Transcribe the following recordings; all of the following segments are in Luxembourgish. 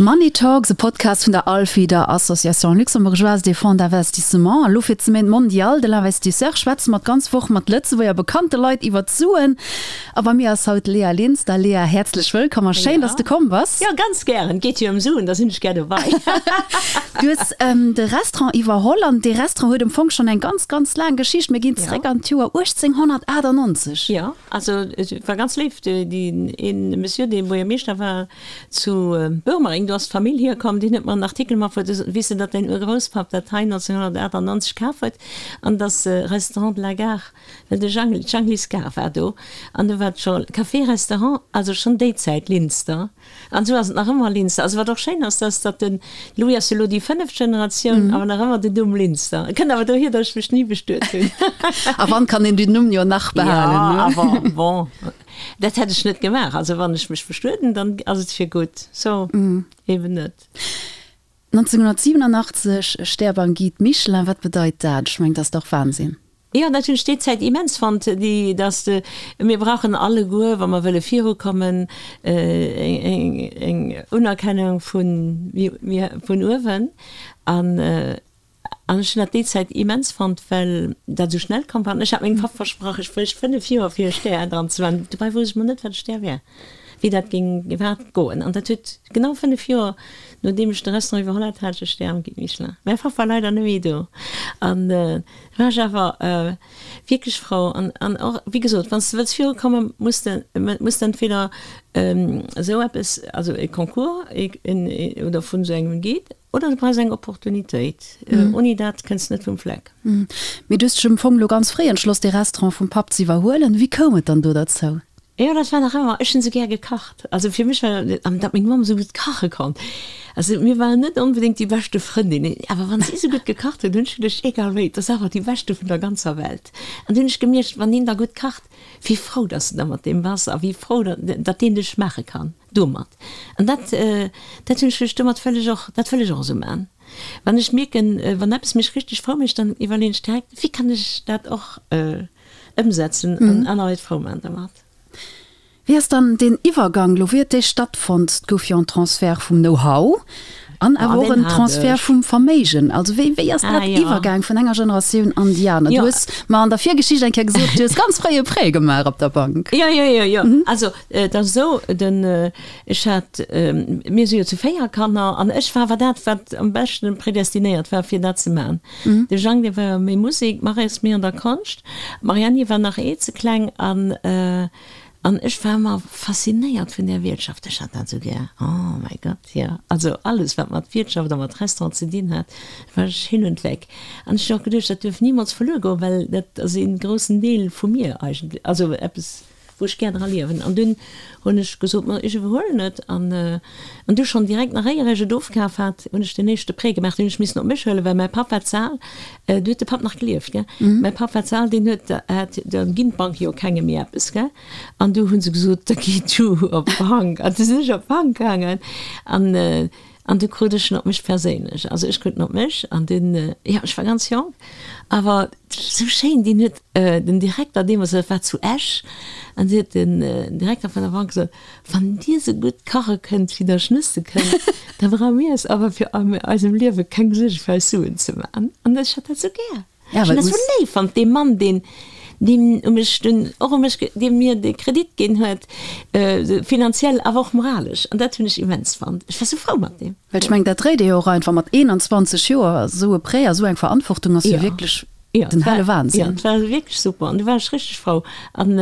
Money Talks, e Podcast vun der ALFI, der Association Luxembourgeoise des Fonds d'Investissement. A lo fir d'Semaine mondiale de l'investisseur schwätze mer d'ganz Woch mat Lëtzebuerger bekannte Leit iwwer d'Suen. A bei mir ass haut d'Léa Linster. Léa, häerzlech wëllkomm a schéin, dass de komm bass. Jo, ganz gären. Et geet jo ëm Suen, da sinn ech gär dobei. Du hues de Restaurant iwwerholl an dee Restaurant huet am Fong schonn eng ganz, ganz laang Geschicht. Mir ginn zeréck an d'Joer 1898. Jo, also et war ganz léif, deen ee Monsieur, dee Buergermeeschter war, Zu Boermereng, do ass d'Famill hierkomm, deen huet mer en Artikel matbruet, weess de, datt däin Urgrousspapp dat hei 1998 kaf huet an datt Restaurant de la Gare, well de Jang, d'Janglis Gare war do an do war et scho Café-Restaurant, also schonn déi Zäit Linster an esou ass et nach ëmmer Linster. Also wat och schéin ass, dass datt de Louis ass jo elo déi fënneft Generatioun, awer nach ëmmer den Numm Linster. Et kënnt awer dohier, datt ech mech ni bestuet hunn. A wann kann een den Numm jo nach behalen, ne? Jo, awer bon. Dat hätt ech net gemaach. Also wann ech mech bestueden, dann ass et fir gutt. So, eben net. 1987, Stär beim Guide Michelin, wat bedeit dat? Ech mengen, dat ass dach Wahnsinn. Jo, dat hunn ech déi Zäit immens fonnt, déi, dass de, mir brauchen alleguer, wa mer wëlle virukommen, eng, eng Unerkennung vun, mir, vun uewen. An An ech hunn dat déi Zäit immens fonnt, well dat esou schnell komm war. An ech hat mengem Papp versprach, ech bréicht 5 Joer fir e Stär dran ze maachen. Dobäi wousst ech mol net, wat e Stär wär, wéi dat géing iwwerhaapt goen. An dat huet genau 5 Joer, nodeem ech de Restaurant iwwerholl hat, hat ech e Stär am Guide Michelin. Mäi Papp war leider net méi do. An da war ech awer wierklech frou. An, an och, wéi gesot, wann s de wëlls virukommen, muss de, muss de entweder esou eppes, also e Concours oder vun esou engem Guide, Oder du brauchs eng Opportunitéit. Ouni dat kënns de net vum Fleck. Mee du hues dech am Fong elo ganz fréi entschloss, dee Restaurant vum Papp ze iwwerhuelen. Wéi koum et dann do derzou? Jo, dat war nach ëmmer, ech hunn esou gär gekacht. Also fir mech war, an datt meng Mamm esou gutt kache konnt. Also mir waren net onbedéngt déi beschte Frëndinnen, awer wann si esou gutt gekacht huet, hunn ech geduecht, egal wéi, et ass awer déi beschte vun der ganzer Welt. An du hunn ech gemierkt, wann een da gutt kacht, wéi frou datt s de da mat deem bass a wéi frou datt deen dech maache kann. Domat. An dat, dat hunn ech lech domat wëll ech och, dat wëll ech och esou maachen. Wann ech mierken, wann eppes mech richteg frou mécht, dann iwwerleeën ech direkt, wéi kann ech dat och ëmsetzen an aner Leit frou maachen domat. Wéi ass dann deen Iwwergang elo, wéi huet dee stattfonnt? Et gouf jo en Transfert vum Know-how an awer och en Transfert vum Verméigen. Also wéi, wéi ass dat iwwergaang vun enger Generatioun an déi aner? Du hues mer an der Virgeschicht eng Kéier gesot, du hues ganz fréi e Prêt gemaach op der Bank. Jo, jo, jo, jo. Also Et ass esou, den, ech hat, mir si jo zu 4 Kanner an ech war awer dat, wat am beschten predestinéiert war, fir dat ze maachen. De Jang, dee war méi Musek, d'Maryse méi an der Konscht, d'Marianne war nach ee ze kleng an, an ech war ëmmer faszinéiert vun där Wiertschaft. Ech hat dat esou gär, oh mäi Gott, jo. Also alles, wat mat Wiertschaft a mat Restaurant ze dinn hat, war ech hin und weg. An ech hunn och geduecht, dat duerf nimools verluer goen, well dat ass ee groussen Deel vu mir eigentlech, also eppes, wou ech gär dra liewen. An dunn hunn ech gesot, ma ech iwwerhuelen et. An an du schonn direkt, nach éier ech et ofkaf hat, hunn ech den éischte Prêt gemaach. Deen hunn ech missen op mech huelen, well mäi Papp war ze al, du huet de Papp nach gelieft, gell, mäi Papp war ze al, deen huet, hat, da ginn d'Banke jo kengem méi eppes, gell. An du hu se gesot, da gi du op d'Bank. An du sinn ech op d'Bank gaangen an an du krut ech en op mech perséinlech. Also ech krut en op mech an dunn, jo, ech war ganz jonk, awer esou schéin, deen huet, Den Direkter deemools, dat war zu Esch, an du huet den Direkter vun der Bank gesot, Wann Dir sou gutt kache kënnt, wéi Der schnësse kënnt, da brauche mir eis awer fir an eisem Liewe keng Suerge fir eis Suen ze maachen. An ech hat dat sou gär. Ech hunn dat sou léif fonnt, dee Mann, deen, deen u mech dunn och u mech, dee mir de Kredit ginn huet, finanziell awer och moralesch. An dat hunn ech immens fonnt. Ech war sou frou mat deem. Well ech mengen, dat dréit ee jo och einfach mat 21 Joer, esou e Prêt a sou eng Verantwortung ass jo wierklech Den helle Wahnsinn. Jo, et war wierklech super an du war ech richteg frou. An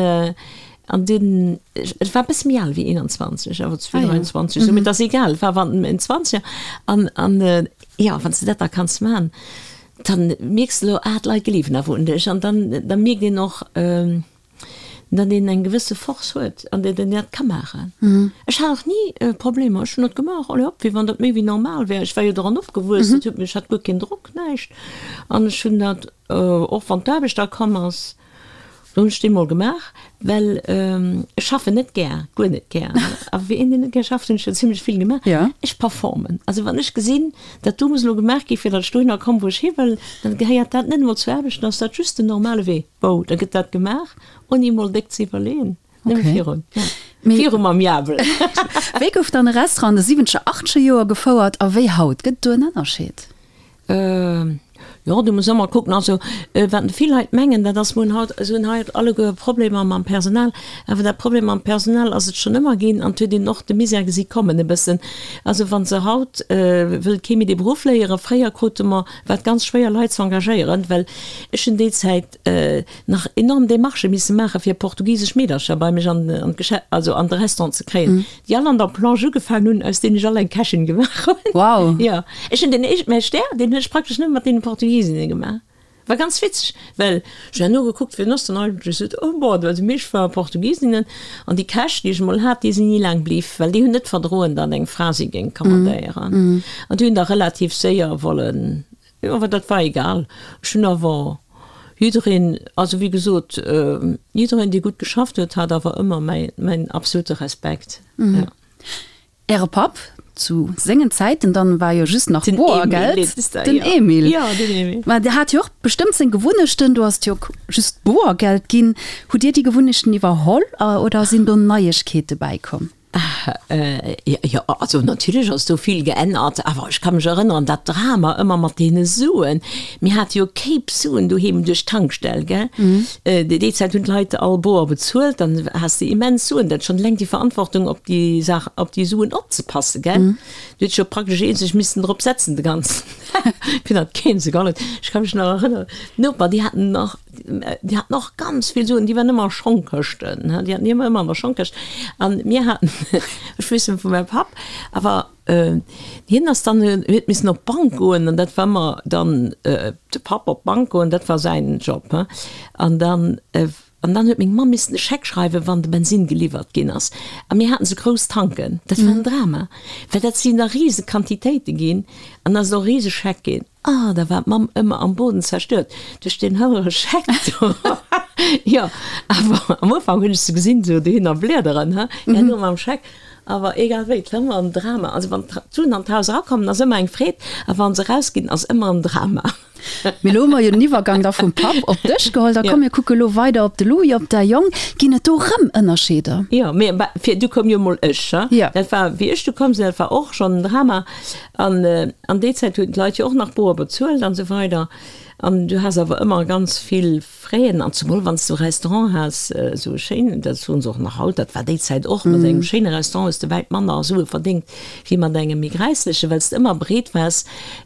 an dunn, ech war e bësse méi al wéi 21, awer 23 esou, mee et ass egal, et war awer en Zwanzeger. An an jo, wann s de dat da kanns man, dann mierks de elo, ah d'Leit gleewen awer un dech. An dann da mierkt een och, datt een eng gewësse Force huet an datt een dat ka maachen. Ech hat och ni Problemer, ech hunn dat gemaach, allez hop, wéi wann dat méi wéi normal wär. Ech war jo doran opgewuess, dat huet mech, ech hat guer keen Drock, näischt. An ech hunn dat, och wann d'Aarbecht da komm ass, do hunn ech déi mol gemaach, well ech schaffen net gär, guer net gär. A fir een, deen net gär schafft, hunn ech jo zimlech vill gemaach. Ech performen. Also wann ech gesinn, dat do muss elo gemaach gi fir datt ech dohinner komm, wou ech hi wëll, dann gehéiert dat net emol zur Aarbecht, dann ass dat just den normale Wee. Bou, da gëtt dat gemaach, ouni emol déck ze iwwerleeën, nëmme virun. Ja. Viru mam Jabel. Wéi gouf dann e Restaurant an de siwwenzeger, achtzeger Joer gefouert a wéi haut? Gëtt et do en Ënnerscheed? Jo, do muss ëmmer kucken. Also, wat vill Leit mengen, dat ass, mir hunn haut, se hunn haut alleguer Problemer mam Personal. Awer dat Problem mam Personal ass et schonn ëmmer ginn an et huet een och de Misär gesi kommen e bëssen. Also wa se haut wëllt kee méi dee Beruff léieren. Fréier krute mer, war et ganz schwéier Leit ze engagéieren, well ech hunn déi Zäit nach enorm Demarchë misse maache fir portugisesch Meedercher bei mech an d'Geschäft, also an de Restaurant ze kréien, déi all an der Plonge ugefaangen hunn, aus deenen ech all eng Kächin gemaach hunn. Wow! Jo, ech hunn den éischt, mäi Stär, deen hunn ech praktesch nëmme mat deene Portugisinnen gemaach. War ganz witzeg, well ech hunn herno gekuckt, wien ass dann eigentlech esou, oh bon, déi meescht ware Portugisinnen an déi Käch, déi ech emol hat, déi sinn ni laang bliww, well déi hunn net verdroen, datt eng Fra si géing commandéieren an déi hunn da relativ séier wollen Jo, awer dat war egal. Ech hunn awer jiddereen, also wéi gesot, jiddereen, dee gutt geschafft huet, hat awer ëmmer mäi, mäin absolute Respekt. Jo. Äre Papp, zu sengen Zäiten dann, war jo just nach Den Emil Boergeld. heet de, Den jo. Emil. Jo, den Emil. Mä dee hat jo och bestëmmt seng Gewunnechten. Do ass et jo just Boergeld ginn. Hutt Dir déi Gewunnechten iwwerholl oder sinn do Neiegkeete bäikomm? Jo, also natierlech ass do vill geännert, awer ech ka mech erënneren, dat Drama ëmmer mat deene Suen. Mir hate jo Kéip Suen doheem duerch d'Tankstell, gell. Déi Zäit hunn d'Leit all boer bezuelt, dann has de immens Suen. Dat schonn eleng déi Verantwortung, op déi Saach, op déi Suen opzepassen, gell. Du hues jo praktesch eenzeg missen drop setzen de ganzen Dag, fir datt keen se geholl huet. Ech ka mech nach erënneren, d'Noper, déi haten nach, Déi haten och ganz vill Suen, déi waren ëmmer a Schongkëschten, déi haten ëmmer ëmmer an der Schongkëscht. An mir haten, ech weess net vu mäi Papp, awer hien ass dann, huet missen op d'Bank goen an dat war ëmmer dann de Papp op d'Bank goen, dat war säin Job. An dann, an dann huet meng Mamm missen e Scheck schreiwen, wann de Bensinn geliwwert ginn ass. A mir haten esou grouss Tanken, dat war en Drama, well dat sinn da rise Quantitéite ginn an da ass et och e rise Scheck ginn. Ah, da war d'Mamm ëmmer am Boden zerstört duerch deen houere Scheck do. Jo, awer am Ufank hunn ech se gesinn, esou dohinner bliederen, he, herno mam Scheck. Awer egal wéi, et war ëmmer en Drama. Also wann d'Suen an d'Haus erakommen, ass ëmmer eng Freed, a wa se erausginn, ass ëmmer en Drama. Mee elo hu mer jo den Iwwergang da vum Papp op dech geholl. Da komm, mir kucke lo weider op de Louis, op däi Jong. Ginn et do rëm Ënnerscheeder? Jo, mee fir du koum jo mol ech, he. Dat war, wéi ech du komm sinn, dat war och schonn en Drama. An an déi Zäit hunn d'Leit jo och nach boer bezuelt an esou weider. An du has awer ëmmer ganz vill Fräen, an zemol wann s du e Restaurant has, esou e schéinen, dat soen se och nach haut, dat war déi Zäit och, mat engem schéine Restaurant hues de wäit manner Sue verdéngt wéi mat engem méi gräisslechen, well s de ëmmer bereet waars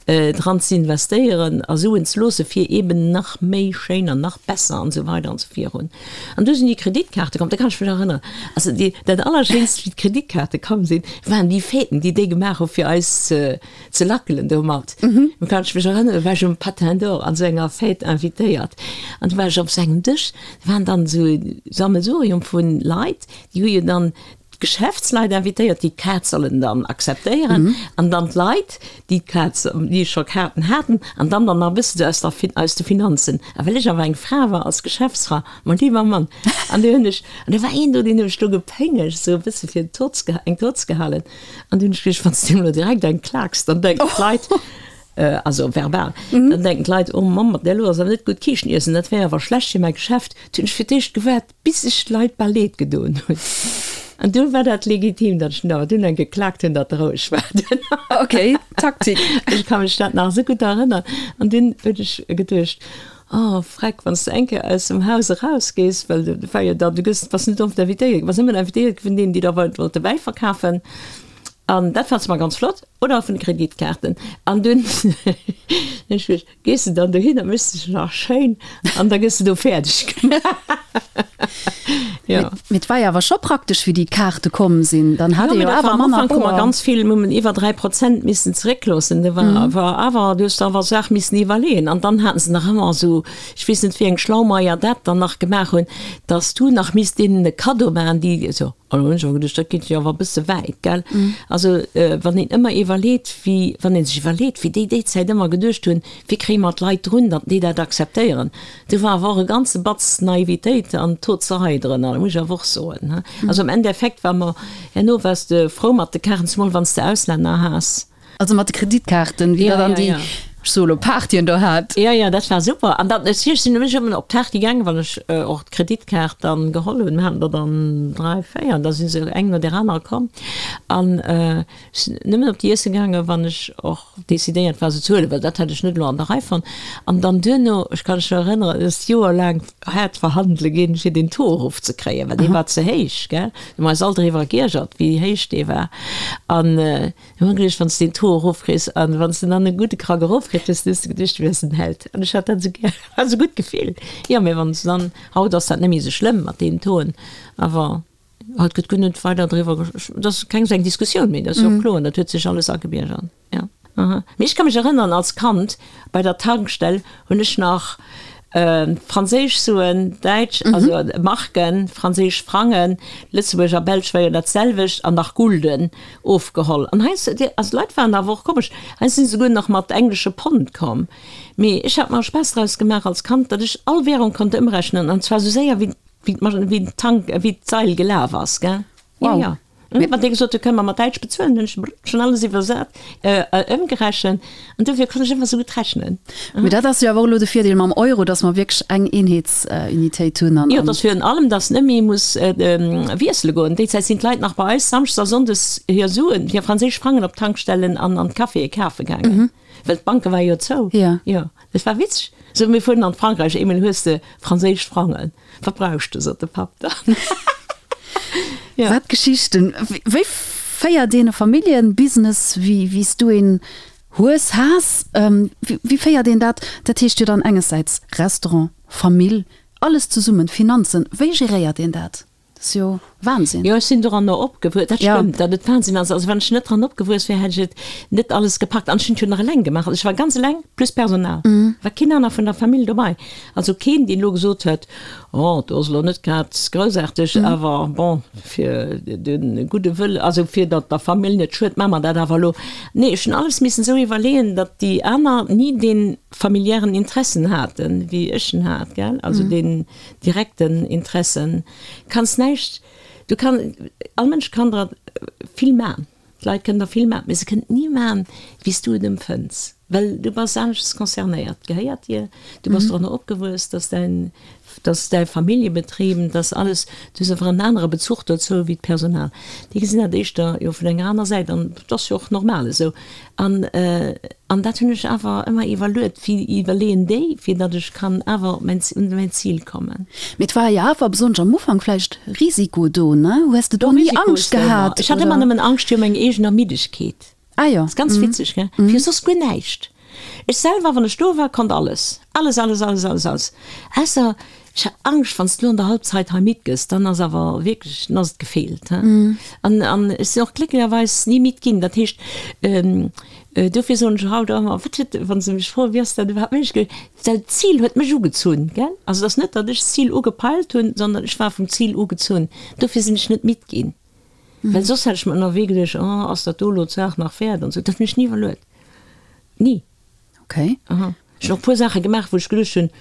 dran ze investéieren a Suen ze loosse fir eben nach méi schéin an nach besser an esou weider an esou virun. An du sinn déi Kreditkaarte komm, da kann ech mech erënneren, also déi, dat Allerschéinst, wéi d'Kreditkaarte komm sinn, waren déi Fêten, déi déi gemaach hu fir eis ze, ze lackelen domat. Do kann ech mech erënneren, do war ech um Patin d'Or an esou enger Fête invitéiert an du war ech op esou engem Dësch, do waren dann esou Sammelsurium vu Leit, déi hu jo dann d'Geschäftsleit invitéiert, déi d'Kaart sollen dann akzeptéieren an dann d'Leit, déi d'Kaart, déi scho Kaarten haten an dann dann nach e bëssen esou aus der, aus de Finanzen. A well ech awer eng Fra war als Geschäftsfra, mein lieber Mann, an du hunn ech, an do war een do, deen hunn ech do gepéngegt, esou e bësse fir tot ze, eng tot ze gehalen. An du hunn ech geduecht, wann s de deem elo direkt eng klaaks, dann denken d'Leit, also verbal, dann denken d'Leit, oh Mamm, mat där elo ass awer net gutt Kiischten iessen, dat wär awer schlecht fir mäi Geschäft. Du hunn ech fir d'éischt gewaart, Bis sech d'Leit bal leed gedoen hunn. An du war dat legitim, datt ech dunn awer dunn eng geklaakt hunn, datt roueg war dunn. Ok, Taktik. Ech ka mech dat nach esou gutt erënnern. An dunn hunn ech geduecht, Oh Freck, wann s de eng Kéier aus dem Haus erausgees, well du war jo dann, du gëss, bass net oft invitéiert, du bass nëmmen invitéiert gi vun deenen, déi der wollte Wäi verkafen. An dat fand se mar ganz flott, oder vun de Kreditkaarten. An dunn hunn ech geduecht, Gees de dann dohin a méchs dech nach schéin an da gëss de do fäerdeg gemaach. Jo. Mee et war jo awer scho praktesch, wéi déi Kaarte komm sinn. Dann hat ee jo awer manner Boer. Am Ufank hu mer ganz vill, mir hunn iwwer 3 Prozent missen zeréckloossen. Do war war awer, du hues der awer Saach missen iwwerleeën. An dann haten se nach ëmmer esou, ech weess net wéi eng Schlaumeier dat dann nach gemaach hunn, dass du nach misst deenen e Kaddo maachen, déi esou. An do hunn ech awer geduecht, dat geet jo awer e bësse wäit, gell? Also, wann een ëmmer iwwerleet, wéi, wann ee sech iwwerleet, wéi déi déi Zäit ëmmer geduecht hunn, wéi kréie mer d'Leit drun, datt déi dat akzeptéieren, do war awer och e ganze Batz Naivitéit an Tozerei drënner, dat muss ech awer och soen, he. Also am Endeffekt war mer, herno waars de frou mat de Kaarten, zemol wann s de Auslänner has. Also mat de Kreditkaarten, wéi dat an déi. Ech soe lo Partyen do hat. Jo, jo, dat war super. An dann, ech sinn nämlech ëmmer op d'Party gaangen, wann ech och d'Kreditkaart dann geholl hunn. Mir haten der dann 3, 4, an da si se eng no där anerer komm. An ech sinn nëmmen op déi Iesse gaangen, wann ech och decidéiert war, se ze huelen, well dat hätt ech net elo an der Rei fonnt. An dann duerno, ech kann mech nach erënneren, et ass joerlaang haart verhandele ginn, fir deen Taux erofzekréien, well dee war ze héich, gell. Mir hu eis all driwwer geiergert, wéi héich dee war. An Hu mer geduecht, wann s de den Taux erofkriss an wann s de dann e gudde Krack erofkritt hues, dann hues de geduecht, du wiers en Held. An ech hat dat esou gär, war esou gutt Gefill. Jo, mee wann s de dann, haut ass dat net méi esou schlëmm mat deenen Tauxen, awer haut gëtt guer net weider driwwer, et ass keng esou eng Diskussioun méi, dat ass jo och kloer, dat huet sech alles agebiergert, jo. Aha. Mee ech ka mech erënneren, als Kand bei der Tankstell hunn ech nach franséisch Suen, däitsch, also Marken, franséisch Frangen, Lëtzebuerg a Belsch war jo dat selwecht, an nach Gulden ofgeholl. An heiansdo, also d'Leit waren awer och komesch, heiansdo sinn se souguer nach mat englesche Pond komm. Mee ech hat mer e Spaass draus gemaach als Kand, datt ech all Währung konnt ëmrechnen, an zwar esou séier wéi wéi d'Tank, wéi d'Sail gelaf ass, gell. Wow. Jo, jo. Mee wann dee gesot huet, kënne mer mat Däitsch bezuelen, hunn ech schonn alles iwwersat, ëmgerechent an dofir konnt ech ëmmer esou gutt rechnen. Mee dat ass jo awer och elo de Virdeel mam Euro, datt mer wierklech eng Eenheetsunitéit hunn an. Jo, et ass virun allem, datt net méi muss wiessele goen. Déi Zäit sinn d'Leit nach bei eis samschdes a sonndes hir Suen, hir franséisch Frangen op d'Tankstellen an an d'Caféë kafe gaangen, well d'Banke ware jo zou. Jo, dat war witzeg. Sou, mir fueren an Frankräich, eemol hues de franséisch Frangen. Wat brauchs de, sot de Papp dann. Ja. Wat Geschichten! Wéi féiert een e Familljebusiness, wéi wéi s du een hues, has? Wéi féiert een dat? Dat heescht jo dann engessäits Restaurant, Famill, alles zesummen, Finanzen. Wéi geréiert een dat? Dat ass jo Wahnsinn. Jo, ech sinn doranner opgewuess. Dat stëmmt, datt et Wahnsinn ass. Also wann ech net dran opgewuess wär, hätt ech et net alles gepackt. An ech hunn et jo nach eleng gemaach. Also ech war ganz eleng plus Personal. War keen aner vun der Famill dobei. Also keen, deen elo gesot huet, Oh, do ass elo net grad groussaarteg, awer bon, fir de gudde Wëll, also fir datt der Famill net schued, maache mer dat awer elo. Nee, ech hunn alles missen esou iwwerleeën, datt déi aner ni dee familiären Interessen haten, wéi ech en hat, gell, also deen direkten Interessen. Kanns näischt, du kann, all Mënsch kann der vill man, d'Leit kënnen der vill man, mee se kënnen et ni man, wéi s du et empfënns, well du bass aneschters concernéiert, gehéiert dir, du bass doranner opgewuess, dass däin, dass däi Familljebetrib, dass alles, du hues einfach en anere Bezuch dozou wéi d'Personal. Déi gesinn dat éischter jo vun enger aner Säit an dat ass jo och normal esou. An, an dat hunn ech awer ëmmer iwwerluet, wéi iwwerleeën déi, fir datt ech kann awer op mäin, un mäin Zil kommen. Mee et war jo awer, besonnesch am Ufank, vläicht Risiko do, ne? Hues de do ni Angscht gehat? Ech hat ëmmer nëmmen Angscht fir meng eegen Ermiddegkeet. Ah jo. Ass ganz witzeg, gell? Fir soss guer näischt. Ech selwer, wann ech do war, konnt alles. Alles, alles, alles, alles, alles. Ausser ech hat Angscht, wann s de lo an der Halbzeit hei midd gëss, dann ass awer wierklech, dann ass et gefeelt, he. An, an ech sinn och glécklecherweis ni midd ginn. Dat heescht, dofir soen ech haut och ëmmer, wat huet, wa se mech froen, wéi ass dat iwwerhaapt méiglech gewiescht, well d'Zil huet mech ugezunn, gell. Also et ass net, datt ech d'Zil ugepeilt hunn, sondern ech war vum Zil ugezunn. Dofir sinn ech net midd ginn. Well soss hätt ech mer ënnerwee geduecht, oh, ass dat do elo d'Saach nach wäert an esou. Dat hunn ech ni iwwerluet. Ni. Okay. Aha. Ech hunn och e puer Saache gemaach, wou ech geduecht hunn,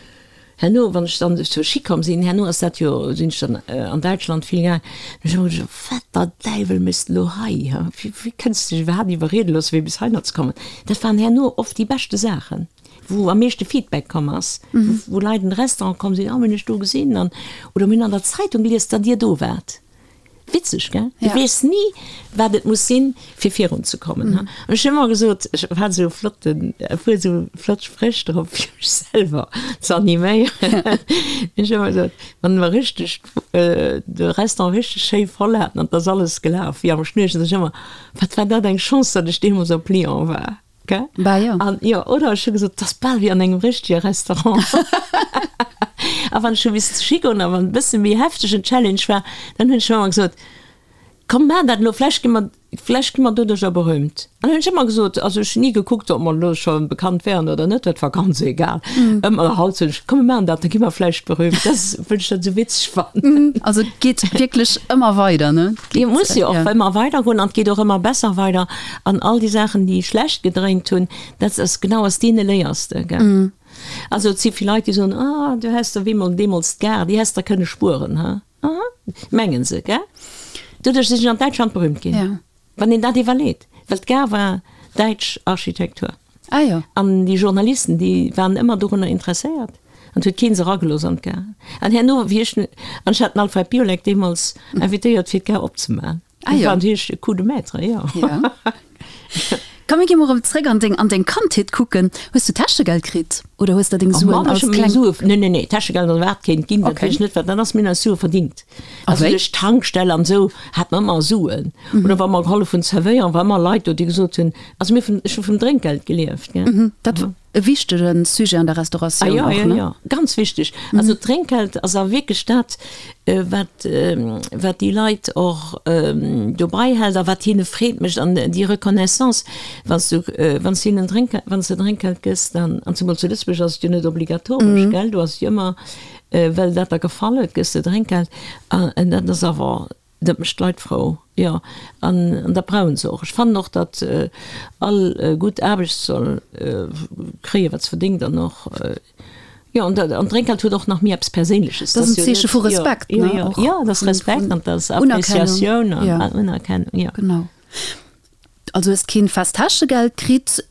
herno, wann ech dann zur Ski komm sinn, herno ass dat jo, sinn ech dann an Däitschland vill gaang, hunn ech ëmmer geduecht, wat der Däiwel méchs de elo hei, ha? Wéi, wéi kënns de dech iwwerhaapt iwwerriede loosse fir bis heihinner ze kommen? Dat waren herno oft déi beschte Saachen, wou am meeschte Feedback komm ass, wou Leit an de Restaurant komm sinn, oh, mir hunn iech do gesinn an, oder mir hunn an der Zeitung gelies, datt Dir do waart. Witzeg, gell? Du weess ni, wat et muss sinn, fir virun ze kommen. An ech hunn ëmmer gesot, ech hat esou flotten, e puer esou flott Spréch drop, fir mech selwer ze animéieren. Ech hunn ëmmer gesot, wann mer richteg de Restaurant richteg schéi voll haten an et ass alles gelaf wéi am Schnürchen, sot ech ëmmer, Wat war dat eng Chance, datt ech deemools op Lyon war. Gell? Bah jo. An jo, oder ech hu gesot, 't ass bal wéi an engem richtege Restaurant. A wann ech hu missen zu Ski goen a wann e bësse méi heftegen Challenge war, dann hunn ech ëmmer gesot, Komm, maachen dat elo, vläicht gi mer, vläicht gi mer doduercher berühmt. An hunn ech ëmmer gesot, also ech hunn ni gekuckt, ob mer elo scho bekannt wären oder net, dat war ganz egal. Ëmmer haut soen ech, Komm, mir maachen dat, da gi mer vläicht berühmt. Dat ass, well ech dat esou witzeg fannen. Also et geet wierklech ëmmer weider, ne? Et muss jo och ëmmer weider goen an et geet och ëmmer besser weider. An all déi Saachen, déi schlecht gedréint hunn, dat ass genau aus deene léiers de, gell. Also et si vill Leit, déi soen, ah, du häss der wéi deemools d'Gare, déi häss der kënne spueren, ha. Aha, mengen se, gell. Doduerch sinn ech an Däitschland berühmt ginn, wann een dat iwwerleet, well d'Gare war däitsch Architektur. Ah jo. An déi Journalisten, déi waren ëmmer dorunner interesséiert. An et huet kee se eragelooss an d'Gare. An herno, wéi ech, an ech hat den Alfred Biolek deemools invitéiert, fir d'Gare opzemaachen. Ah jo. Dat war natierlech e Coup de maître, jo. Ja. Komm, mir gi mol erëm zréck an deng, an deng Kandheet kucken. Hues du Täschegeld kritt oder hues der deng Oh Suen Mann, ech als hu meng kleng. Sue, nee, nee, nee, Täschegeld ass wat kéint ginn, dat Okay. weess ech net, wat dat ass. Mir hunn eis Sue verdingt. A Also wéi? duerch d'Tankstell an esou hat mer ëmmer Suen. Oder wa mer gehollef hunn zerwéieren, war ëmmer Leit do, déi gesot hunn, also mir vun, ech hu vum Drénkgeld gelieft, gell. Dat E wichtege Sujet an der Restauratioun ah, ja, och, ja, ne? Ja, ganz wichteg. Also d'Drénkgeld ass a wierklech dat, wat, wat déi Leit och dobei hält a wat hinne Freed mécht an déi Reconnaissance, wann s du, wann s du hinnen Drénk, wann s de Drénkgeld gëss, dann, an zemol zu Lëtzebuerg ass et jo net obligatoresch, gell, do ass et jo ëmmer, well dat der gefall huet, gëss de Drénkgeld an dat ass awer Dat mécht d'Leit frou, jo. An dat brauche se och. Ech fannen och, datt all gutt Aarbecht soll kréien, wat se verdéngt an och, jo. An d'Drénkgeld huet och nach méi eppes Perséinleches. Dat ass en Zeeche vu Respekt, ne? Och. Jo, dat ass Respekt an dat ass Appreciatioun an Unerkennung, jo. Genau. Also hues keen fest Täschegeld kritt,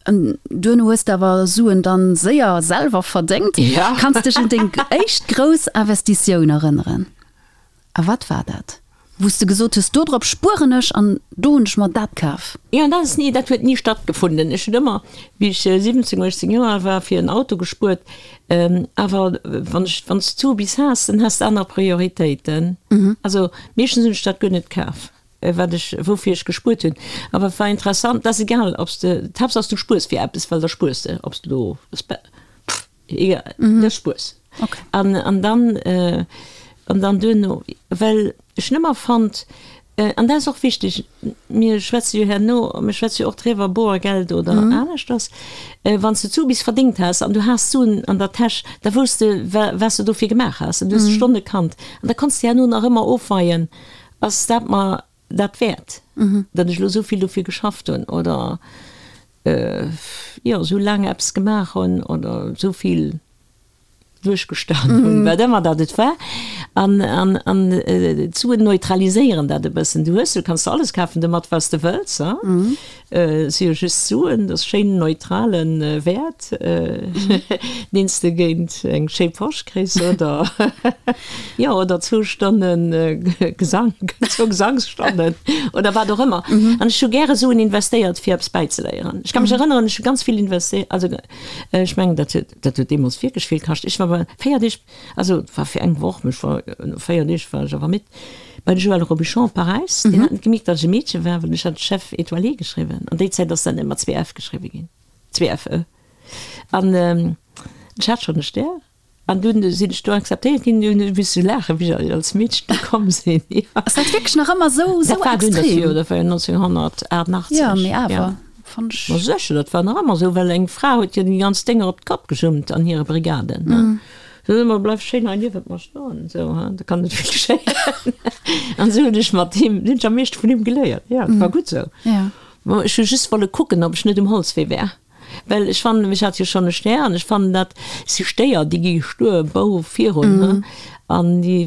duerno hues de awer Suen dann séier selwer verdéngt. Kanns dech un deng éischt grouss Investitioun erënneren? A wat war dat, wou s de gesot hues, dodrop spueren ech an do hunn ech mer dat kaf? Jo, dat ass ni, dat huet ni stattgefunden. Ech hunn ëmmer, wéi ech 17, 18 Joer al war, fir en Auto gespuert. Awer wann ech, wann s du bis has, dann has de aner Prioritéiten. Also meeschtens hunn ech dat guer net kaf, wat ech, woufir ech gespuert hunn. Awer et war interessant, dat ass egal, ob s de, d'Haaptsaach du spuers fir eppes, well da spuers de, ob s de elo, pff, Egal, mm. dat spuers. Okay. An, an dann, äh, an dann duerno, well ech nëmmer fand, äh, an dat ass och wichteg, mir schwätze jo herno, mir schwätze jo och driwwer, Boergeld oder mm. aneschters, äh, wann s du zu bis verdéngt has an du has Suen an der Täsch, da wousst de, wa, was du dofir gemaach has, an du hues mm. Stonne kannt. An da konntst du herno nach ëmmer ofweien, ass dat mer dat wäert, datt ech elo esou vill dofir geschafft hunn oder jo esou laang eppes gemaach hunn oder esou vill duerchgestanen hunn, wat ëmmer dat et war. An, an, an d'Suen neutraliséieren dat e bëssen. Du hues, du kanns der alles kafen domat, wat s de wëlls, ha. Et si jo just Suen, dat ass schéin neutrale Wäert, deen s de géint eng schéi Posch kriss oder, jo, oder zwou Stonne Gesank, zwou Gesangsstonnen oder wat och ëmmer. An ech hu gäre Suen investéiert, fir eppes bäizeléieren. Ech ka mech erënneren, ech hu ganz vill investéiert, also ech mengen, dat huet, dat huet deemools wierklech vill kascht. Ech war bei 4 Deeg, also et war fir eng Woch, mee ech war, no 4 Deeg war ech awer midd. Bei de Joël Robichon op Paräis, deen hat net gemierkt, datt ech e Meedche war, well ech hat Chef étoilé geschriwwen. An déi Zäit ass dat net mat 2 F geschriwwe ginn, 2 F E. An ech hat schonn e Stär. An dunn sinn ech do akzeptéiert ginn. Dunn hu ech misse laachen, wéi ech als Meedchen do komm sinn. Ass dat wierklech nach ëmmer esou, esou Dat war dunn, dat extrem? jo, dat war jo 1988. Jo, mee awer, fannt ech. Ma sécher, dat war nach ëmmer esou, well eng Fra huet jo déi ganz Dénger op d'Kopp gejummt an hire Brigaden, ne. Sot ëmmer, Bleif schéin hei niewent mer stoen, esou, ha, da kann net vill geschéien. An esou hunn ech mat him, hunn ech am meeschte vun him geléiert. Jo, et war gutt esou. Bon, ech hu just wolle kucken, ob ech net um Holzwee wär. Well ech fannen, ech hat jo schonn e Stär an ech fannen dat si Stéier, déi gi stuer bou virun, ha, an déi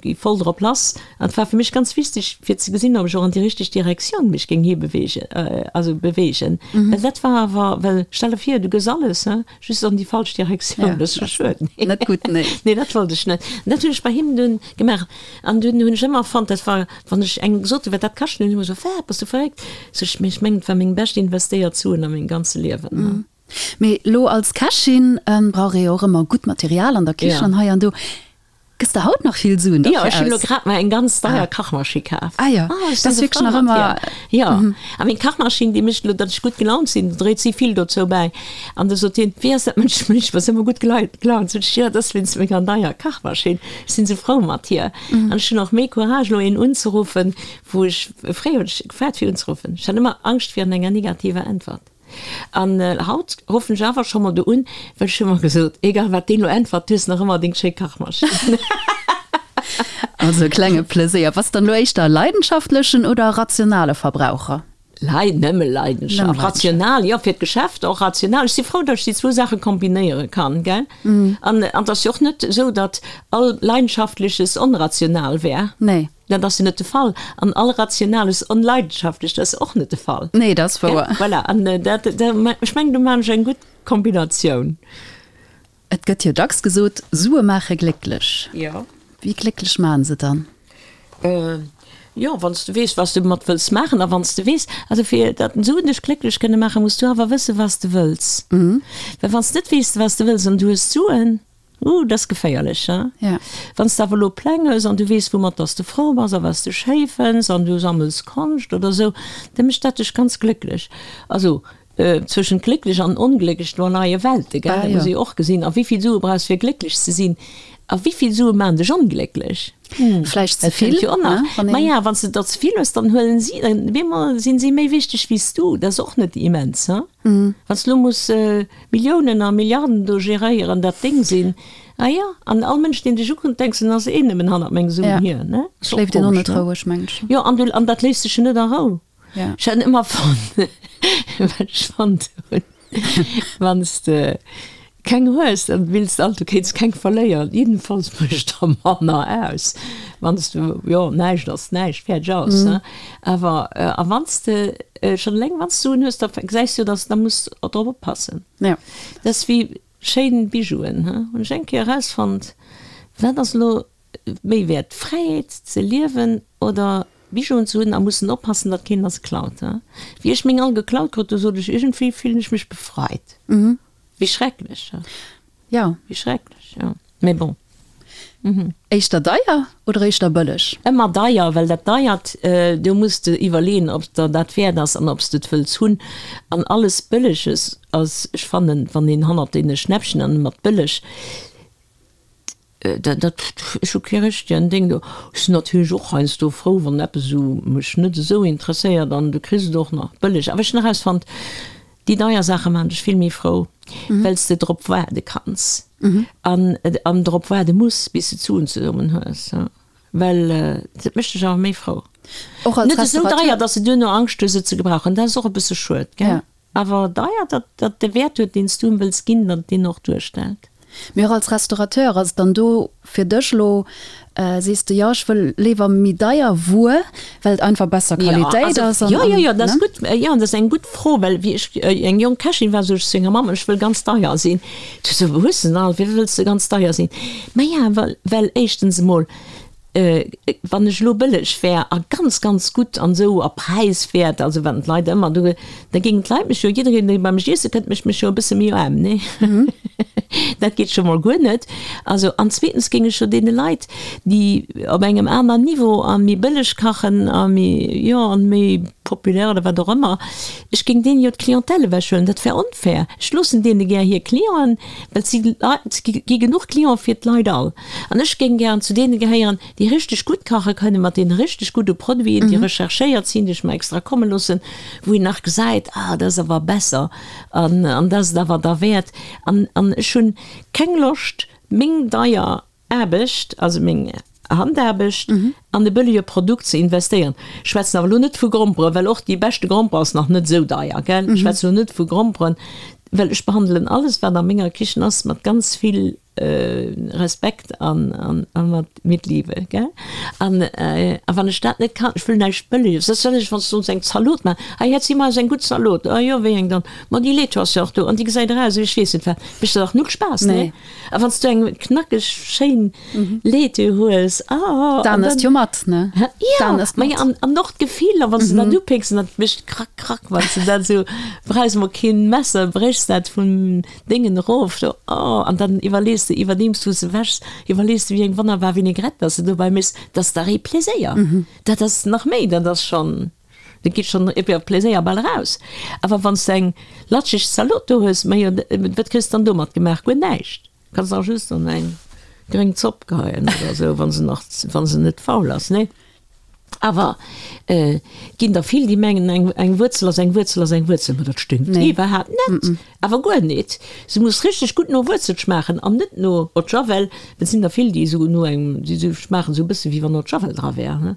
gi voll drop lass. An et war fir mech ganz wichteg, fir ze gesinn, ob ech och an déi richteg Direktioun mech géing hibewegen, also bewegen. Well dat war awer, well stell der vir, du gëss alles, ha, Just an déi falsch Direktioun, dat ass jo schued. Net gutt, nee. Nee, dat wollt ech net. An dat hunn ech bei him dunn gemaach. An dunn hunn ech ëmmer fonnt, dat war, wann ech engem gesot hunn, wat dat kascht, hunn ech ëmmer gesot, Wat, bass du verréckt? Sot ech, mee ech mengen, et war meng bescht investéiert Suen a mengem ganze Liewen. Mee elo als Kächin brauch ee jo och ëmmer gutt Material an der Kichen an hei an do. Gëss de haut nach vill Suen dofir aus? Jo, ech hunn elo grad mer eng ganz deier Kachmaschinn kaf. Ah jo, dat ass wierklech nach ëmmer. Jo, a meng Kachmaschinn, déi mécht elo, datt ech gutt gelaunt sinn, do dréit si vill dozou bäi. An du sot hien, Wéi ass dat mënschlech, bass ëmmer gutt gelaunt? Sot ech, Jo, dat ass wéinst menger neier Kachmaschinn, ech sinn esou frou mat hir. An ech hunn och méi Courage elo een unzeruffen, wou ech, fréier hunn ech gefaart fir unzeruffen, ech hat ëmmer Angscht virun enger negativer Äntwert. An haut ruffen ech awer scho mol do un, well ech hu mer gesot, egal wat deen lo äntwert, du hues nach ëmmer deng schéi Kachmaschinn. Also e klenge Pleséier. Bass dann elo éischter e leidenschaftlechen oder e rationale Verbraucher? Lei, nëmme Leidenschaft. Rational, jo, fir d'Geschäft och rational. Ech si frou, datt ech déi zwou Saache kombinéiere kann, gell? An et ass jo och net esou, datt all Leidenschaftleches onrational wär. Nee. Dat ass jo net de Fall. An all Rationales Onleidenschaftlecht ass och net de Fall. Nee, dat ass wouer. Voilà, an dat, ech mengen, do maachen ech eng gutt Kombinatioun. Et gëtt jo dacks gesot, Sue maache glécklech. Jo. Wéi glécklech maachen se dann? Jo, wann s de weess, wat s de domat wëlls maachen a wann s de weess, also fir datt Suen dech glécklech kënne maachen, muss du awer wëssen, wat s de wëlls. Well wann s de net weess, wat s de wëlls an du hues d'Suen, uh, dat ass geféierlech, hein. Ja. Wann s de awer elo Pläng hues an du weess, woumat datt s de frou bass a wat s de schéi fënns an du sammels Konscht oder esou, da mécht dat dech ganz glécklech. Also Zwëschent glécklech an onglécklech, do leie Welte, gell? Dat muss ee jo och gesinn. A wéi vill Sue brauchs fir glécklech ze sinn? A wéi vill Sue maachen dech onglécklech? Vläicht ze vill, ne? Maja, wann s de der ze vill hues, dann huelen si, op eemol sinn si méi wichteg wéi s du. Dat ass och net immens, he? Wann s de elo muss Milliounen a Milliarden do geréieren, dat deng sinn, ah jo, an all Mënsch, deen dech ukuckt, denks en ass een nëmmen hannert meng Suen hier, ne? Schléift een och net roueg, mengen ech. Jo, an du, an dat léisst sech jo net a Rou. Ja. Ech hat ëmmer fonnt, wat ech fonnt hunn, wann s de keng hues, dann wills de alt, du kéints keng verléieren. Jiddenfalls mécht der manner aus, wann s du, jo, näischt ass näischt, fäerdeg aus, ne? Awer, a wann s de schonn eleng, wann s de Suen hues, da gesäis du jo, dass, da muss drop oppassen. Ja. Dat ass wéi schéin Bijouen, he, hunn ech eng Kéier erausfonnt, wat ass elo méi wäert, d'Fräiheet ze liewen oder Bijouen ze hunn a mussen oppassen, datt keen der se klaut. Wéi ech meng all geklaut krut, du sot ech, iergendwéi fillen ech mech befreit. Wéi schrecklech, he? Jo. Wéi schrecklech, jo. Mee bon. Éischter deier oder éischter bëlleg? Ëmmer deier, well dat Deiert, do muss de iwwerleeën, ob der dat wäert ass an ob s de et wëlls hunn. An alles Bëlleges ass, ech fannen, wann een hannert deene Schnäppchen an mat bëlleg, Dat, dat, ech hu kee richtegen Déng do. Ech sinn natierlech och heiansdo frou, wann eppes esou mech net esou interesséiert an du kriss et och nach bëlleg. Awer ech hunn erausfonnt, déi deier Saache maachen dech vill méi frou, well s de drop waarde kanns an, an drop waarde muss, bis de d'Suen zesummen hues. Well dat mécht dech awer méi frou. Och als Net esou Restaurateur. deier, datt s de duerno Angscht hues, et ze gebrauchen. Dat ass och e bësse schued, gell? Ja. Awer deier, datt dat de Wäert huet, deen s du em wëlls ginn, datt et deen och duerstellt. Mee och als Restaurateur, ass et dann do fir dech elo, sees de, jo ech wëll léiwer méi deier Wuer, well et einfach besser Qualitéit ass? Jo, jo, jo, dat ass gutt. Jo, dat ass eng gutt Fro, well wéi ech eng jonk Kächin war, sot ech zu enger Mamm, ech wëll ganz deier sinn. Du so, wou hues de se all, wéi wëlls de ganz deier sinn? Maja, well, well éischtens emol, Wann ech elo bëlleg wär a ganz, ganz gutt an esou a präiswäert, also wat d'Leit ëmmer do, da géingen d'Leit mech jo, jiddereen dee bei mech iesse kënnt, mécht mech jo e bësse méi aarm, nee? Dat geet scho mol guer net. Also, an zweetens géing ech jo deene Leit, déi op engem aner Niveau a méi bëlleg kachen a méi, jo, an méi populär oder wat och ëmmer, ech géing deenen jo d'Clientèle ewechhuelen. Dat wär onfair. Ech loossen deene gär hir Clienten, well et si Leit, et gi genuch Clienten fir d'Leit all. An ech géing gären zu deene gehéieren, déi richteg gutt kache kënnen, mat deene richteg gudde Produiten, déi recherchéiert sinn, déi ech mer extra komme loossen, wou een nach gesäit, ah, dat ass awer besser an an dat ass et awer derwäert. An an ech hunn keng Loscht, meng deier Aarbecht, also meng Handaarbecht, an e bëllege Produkt ze investéieren. Ech schwätzen awer elo net vu Gromperen, well och déi beschte Gromper ass nach net esou deier, gell. Ech schwätzen elo net vu Gromperen, well ech behandelen alles, wat a menger Kichen ass, mat ganz vill Respekt an mat mit Liebe, gell? An a wann ech dat net kann, ech wëll näischt Bëlleges, dat wëll ech, wann s du ons eng Zalot maachen, hei hätt si mer eis eng gutt Zalot, ah jo, wéi eng dann? Ma déi Laitue ass jo och do an déi gesäit eraus ewéi ech weess net wat, mécht der dach null Spaass, nee? A wann s du eng knackeg schéin Laitue hues, ah, an dann. D'An ësst jo mat, ne? Jo, ma jo, an an och d'Gefill, a wann s du dat upécks an dat mécht krack, krack, wann s du dat esou, brauchs emol keen Messer, bréchs dat vum Déngen erof do, oh, an dann iwwerlees de, iwwerdeems du se wäschs, iwwerlees de wéi eng wonnerbar Vinaigrette dass de dobäi méchs, dat ass dach ee Pléséier, dat ass nach méi, dat ass schonn, dat geet schonn iwwer Pléséier bal eraus. Awer wann s de eng latscheg Zalot do hues, majo, wat kriss de dann domat gemaach? Guer näischt, kanns nach just an eng gréng Zopp geheien oder esou, wa se nach, wa se net faul ass, nee? Awer et ginn der vill, déi mengen, eng, eng Wuerzel ass eng Wuerzel ass eng Wuerzel. Ma dat stëmmt Nee. iwwerhaapt net. Awer guer net. Se muss richteg gutt no Wuerzel schmaachen an net no Eau de Javel. Et sinn der vill, déi esou no engem, déi esou schmaachen esou e bësse wéi wann Eau de Javel dra wär.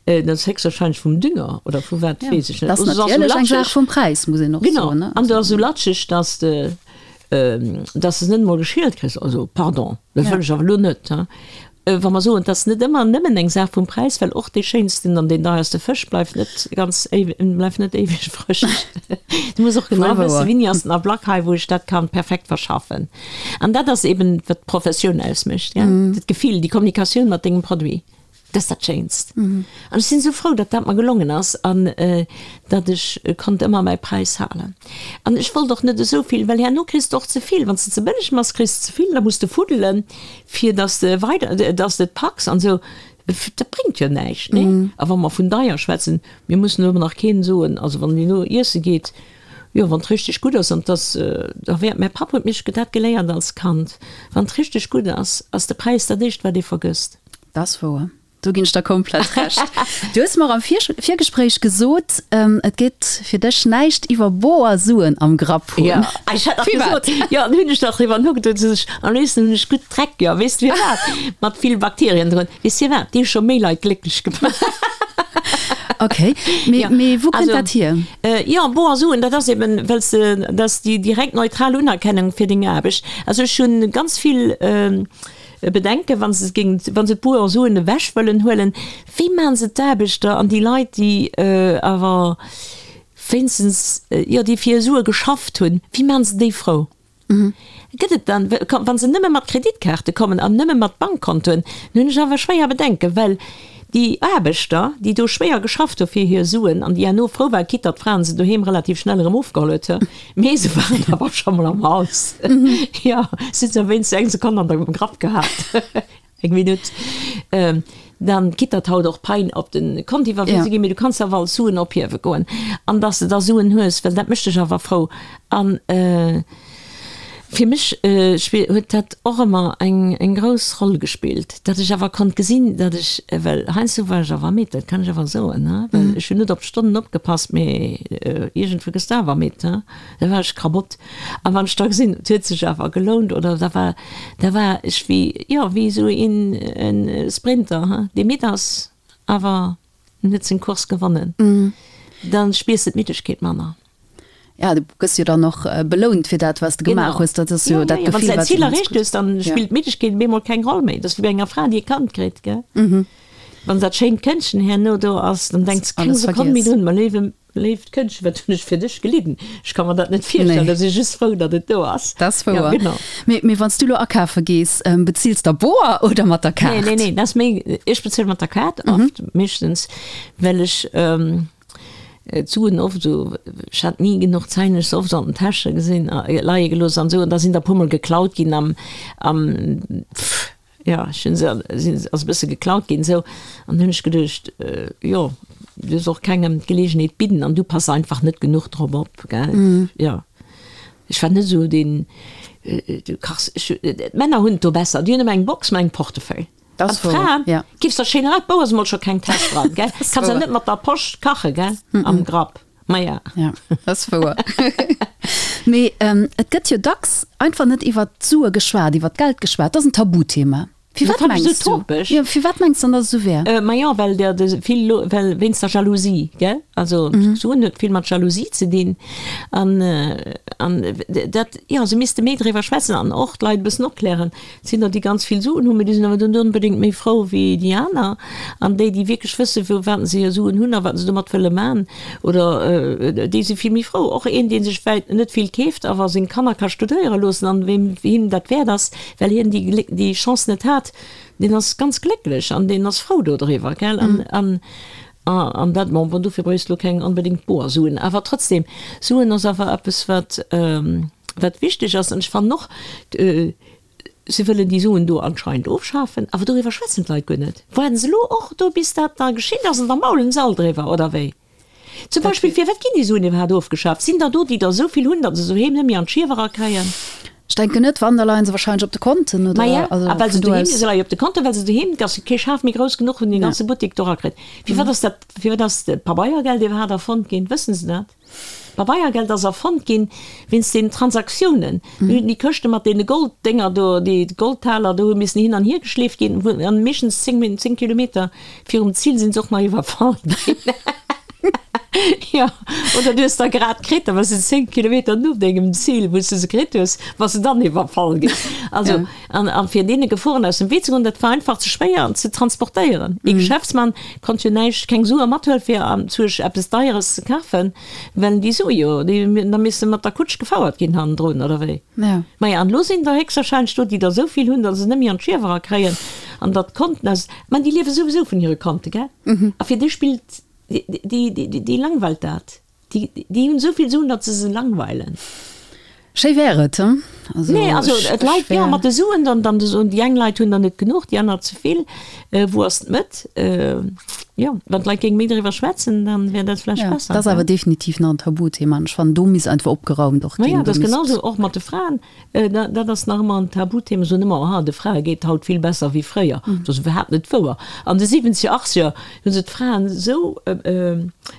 Dat ass héchstwahrscheinlech vum Dünger oder vu wat, Ja. weess ech net. Dat ass Oder se ass esou natierlech eng Saach latscheg. vum Präis, muss een och Genau. soen, ne? An se ass esou latscheg, dass de, dass de se net emol geschielt kriss. Also, pardon, dat Ja. wëll ech awer elo net, hein. Wa mer soen, et ass net ëmmer nëmmen eng Saach vum Präis, well och dee schéinsten an deen deierste Fësch bleift net ganz éiweg, bleift net éiweg frësch. Du muss och genau wëssen, wéini ass den Ablack hei, wou ech dat kann perfekt verschaffen. An dat ass eben, wat d'Professioun ausmécht, gell? Dat Gefill, déi Kommunikatioun mat dengem Produit. Dat ass dat Schéinst. An ech sinn esou frou, datt dat mer gelongen ass an datt ech konnt ëmmer mäi Präis halen. An ech wollt och net esou vill, well herno kriss de och ze vill. Wann s de ze bëlleg méchs, kriss de ze vill, da muss de fuddelen, fir datt s de weider, datt s de et packs an esou. Dat bréngt jo näischt, nee? A wa mer vun deier schwätzen, mir mussen elo nach keen soen, also wann een elo iesse geet, jo, wann et richteg gutt ass an 't ass derwäert, mäi Papp huet mech dat geléiert als Kand, wann et richteg gutt ass, ass de Präis dat éischt, wat ee vergësst. Dat ass wouer. Do ginn ech der komplett Recht. Du hues mer am Virgespréich gesot, et geet fir dech näischt iwwer boer Suen am Grapp hunn. Jo, ech hat nach gesot, jo, an hunn ech nach driwwer nogeduet, sot ech, am léifsten hunn ech gutt Dreck, jo, weess de firwat? Mat vill Bakterien drun. Weess firwat? Déi hu scho méi Leit glécklech gemaach. Ok, mee, mee wou kënnt dat hier? Jo, boer Suen, dat ass eben, well s de, dat ass déi direkt neutral Unerkennung fir deng Aarbecht. Also ech hunn ganz vill. Bedenken, wa se géingen, wa se d'Boer Suen ewech wëllen huelen, wéi maachen se d'Aarbechter an déi Leit, déi awer wéinstens, jo, déi fir hir Sue geschafft hunn, wéi maachen se déi frou? Gëtt et dann, wa se nëmme mat Kreditkaarte kommen an nëmme mat Bankkontoen, dann hunn ech awer schwéier Bedenken, well déi Aarbechter, déi do schwéier geschafft hu fir hir Suen an déi herno frou waren, quitte datt d'Fraen se doheem relativ schnell erëm ofgeholl huet, Mee se waren awer scho mol am Haus. Jo, se hunn se wéinst eng Sekonn an der Grapp gehat. Eng Minutt. Dann quitt datt haut och Pein op de Kont iwwerwise ginn, mee du kanns awer all Suen ophiewe goen. An datt s de da Suen hues, well dat mécht dech awer frou. An fir mech huet dat och ëmmer eng grouss Roll gespillt, datt ech awer konnt gesinn, datt ech, well heiansdo war ech awer midd, dat kann ech awer soen, he, well ech hunn net op d'Stonnen opgepasst, mee iergendwou gëss de awer midd, he, da war ech kabott. A wann ech da gesinn, et huet sech awer gelount oder da war, da war ech wéi, jo, wéi esou een e Sprinter, he, dee midd ass, awer en huet seng Course gewonnen, da spiers de d'Middegkeet manner. Ja, du gëss jo dann och belount fir dat, wat s de gemaach hues. Dat ass jo dat Gefill, wat. Wann s de däin Zil erreecht hues, dann spillt d'Middegkeet op eemol keng Roll méi. Dat ass wéi bei enger Fra, déi e Kand kritt, gell? Wann dat schéint Këndchen herno do ass, dann denks de keng Sekonn méi drun, Ma léiwe, léift Këndchen, wat hunn ech fir dech gelidden? Ech ka mer dat net virstellen. Da si ech just frou, datt et do ass. Dat ass wouer. Ja, genau. Mee, mee wann s du elo akafe gees, bezills de boer oder mat der Kaart? Nee, nee, nee, dat ass méi, ech bezuele mat der Kaart oft, meeschtens, well ech, D'Suen oft esou, ech hat ni genuch Zäin, ech se oft an den Täsche gesinn, leie gelooss an esou, an da sinn der e puermol geklaut ginn am, am, pff, jo, ech hunn se, sinn, ass e bësse geklaut ginn esou, an hunn ech geduecht, jo, du dierfs och kengem d'Geleegenheet bidden an du pass einfach net genuch drop op, gell, jo. Ech war net esou deen, du kachs, ech, d'Männer hunn et do besser, déi hunn ëmmer eng Box mat engem Portefeuille. Das An d'Fra ja. Giffs der schéin erat, Bou ass emol scho keng Täsch dran, gell? Kanns ja net mat der Posch kache, gell? Mm -mm. Am Grapp. Ma ja. Ja, dat ass wouer. Mee ähm, et gëtt jo dacks einfach net iwwer d'Sue geschwat, iwwer d'Geld geschwat. Dat ass en Tabuthema. Firwat mengs du? Ja, firwat mengs du dann, datt et esou wär? Äh, ma jo, well der de vill lo, well wéinst der Jalousie, gell? Also mm -hmm. Suen huet vill mat Jalousie ze dinn. An, äh, an dat, jo, se misste méi driwwer schwätzen an och d'Leit e bëssen opklären. Et sinn der, déi ganz vill Suen hunn, mee déi sinn awer net onbedéngt méi frou wéi déi aner. An déi, déi wierklech wëssen, wou wat se hir Suen hunn a wat se domat wëlle man, oder déi si vill méi frou. Och een, dee sech vläit net vill keeft, awer seng Kanner ka studéiere loossen an weem him dat wäert ass, well hien déi déi Chance net hat, deen ass ganz glécklech an deen ass frou dodriwwer, gell. An an dat, bon, bon, dofir bréichs de lo keng onbedéngt boer Suen, awer trotzdem, Suen ass awer eppes, wat Wat wichteg ass, an ech fannen och, se wëllen déi Suen do anscheinend ofschafen, awer doriwwer schwätzen d'Leit guer net. Waarden se elo och do, bis dat da geschitt ass, an da maulen se all driwwer, oder wéi? Zum Beispill, firwat ginn déi Suen iwwerhaapt ofgeschaf? Sinn der do, déi der esou vill hunn, datt se se doheem net méi an d'Schiewer erakréien? Ech denken net, wann, da leien se wahrscheinlech op de Konten, oder? Maja, a well se doheem, se leie op de Konten, well se doheem, et ass kee Schaf méi grouss genuch, wou en dee ganze Buttek do erakritt. Firwat ass dat, firwat ass d'Pabeiergeld iwwerhaapt erfonnt ginn? Wëssen se dat? D'Pabeiergeld ass erfonnt ginn wéinst den Transaktiounen. Do hunn déi Këschte mat deene Golddénger do, déi Goldtaler do hu missen hin an hier geschleeft ginn, wou an meeschtens 10 Min, 10 Kilometer virum Zil sinn se och nach iwwerfall ginn. Jo, oder du hues der grad kritt, da bass de 10 Kilometer no dengem Zil, wou s de se kritt hues, bass de dann iwwerfall ginn. Also, ja. an, an fir deene Geforen aus dem Wee ze goen, dat war einfach ze schwéier ze transportéieren. Ee Geschäftsmann konnt jo näischt, keng Sue mathuelen, fir anzuerch eppes Deieres ze kafen, well déi Sue jo, déi da misste mat der Kutsch gefouert ginn hannendrun, oder wéi? Ja. Maja, an elo sinn der héchstwahrscheinlech do, déi der esou vill hunn, datt se net méi an d'Schiewer erakréien an datt d'Konten aus, mä déi liewe souwisou vun hire Konte, gell? A fir déi spillt Déi langweilt dat. Déi hunn esou vill Suen, datt se se langweilen. Schéi wär et, he? Also, nee, also et leit jo mat de Suen, dann, dann déi eng Leit hunn der net genuch, déi aner ze vill. Wou ass d'Mëtt? Jo, wann d'Leit géinge méi driwwer schwätzen, dann wär dat vläicht besser. Dat ass awer definitiv nach en Tabuthema an ech fannen, do misst einfach opgeraumt och ginn. Maja, dat ass genau esou och mat de Fraen. Dat ass nach ëmmer en Tabuthema, soen ëmmer, aha, de Frae geet haut vill besser wéi fréier. Dat ass iwwerhaapt net wouer. An de siwwenzeger, achtzeger hu se d'Fraen esou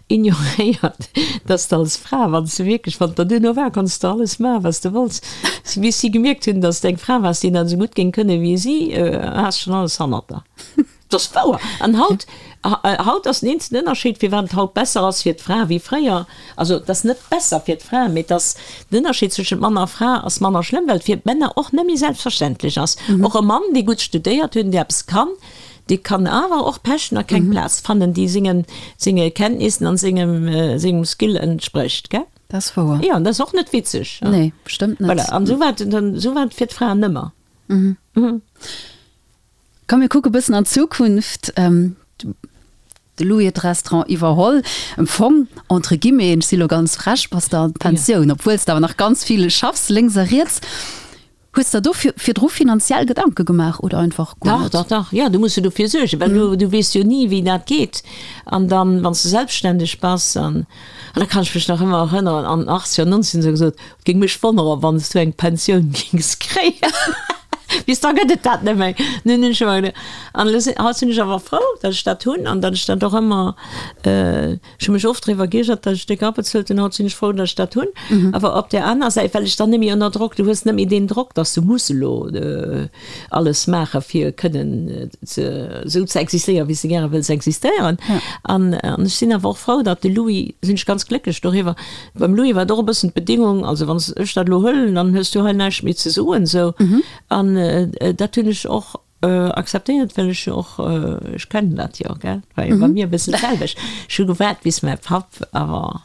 ignoréiert, datt s de als Fra, wann s de wierklech, wann et der duerno war, konns de alles maachen, wat s de wollts. Bis si gemierkt hunn, datt s de eng Fra waars, déi dat esou gutt géing kënnen wéi si, has schonn alles hannert der. Dat ass wouer. An haut, haut ass den eenzegen Ënnerscheed, firwat et haut besser ass fir d'Fra wéi fréier, also et ass net besser fir d'Fra, mee et ass, den Ënnerscheed zwëschent Mann a Fra ass manner schlëmm, well et fir d'Männer och net méi selbstverständlech ass. Och e Mann, dee gutt studéiert huet an dee eppes kann, dee kann awer och pechen a keng Plaz fannen, déi sengen, senge Kenntnissen an sengem, sengem Skill entsprécht, gell? Dat ass wouer. Jo, an dat ass och net witzeg. Nee, bestëmmt net. Voilà, an esou war et dann, esou war et fir d'Fraen ëmmer. Komm mir kucke bëssen an d'Zukunft. De Louis huet d'Restaurant iwwerholl. Am Fong, entre guillemets, ech si lo ganz frech, bass de an d'Pensioun, obwuel s de awer nach ganz vill schaffs, lénks a riets. Hues der do virdru finanziell Gedanke gemaach oder einfach guer net? Dach, dach, dach, jo, du muss jo dofir suergen, well du, du weess jo ni, wéi dat geet. An dann, wann s de selbstständeg bass, an, an da kann ech mech nach ëmmer erënneren, an den Achtzeger, Nonzeger, se gesot, Et géing mech wonneren, wann s du eng Pensioun géings kréien. Bis da gëtt et dat net méi. Nun hunn ech ëmmer geduecht, an elo sinn, haut sinn ech awer frou, datt ech dat hunn an datt ech dat och ëmmer, ech hu mech oft driwwer geiergert, datt ech déck abezuelt hunn, haut sinn ech frou, datt ech dat hunn. Awer op där aner Säit, well ech dann net méi ënner Drock, du hues net méi deen Drock, datt s du muss elo alles maache fir kënnen ze, esou ze existéieren, wéi s de gäre wëlls existéieren. An ech sinn awer och frou, datt de Louis, sinn ech ganz glécklech doriwwer, Beim Louis war et och e bëssen d'Bedingung, also wann ech dat elo huelen, dann hues du hei näischt méi ze soen, esou. An dat hunn ech och akzeptéiert, well ech jo och, ech kennen dat jo, gell, war jo bei mir e bëssen d'selwecht. Ech hu gewaart, bis mäi Papp awer,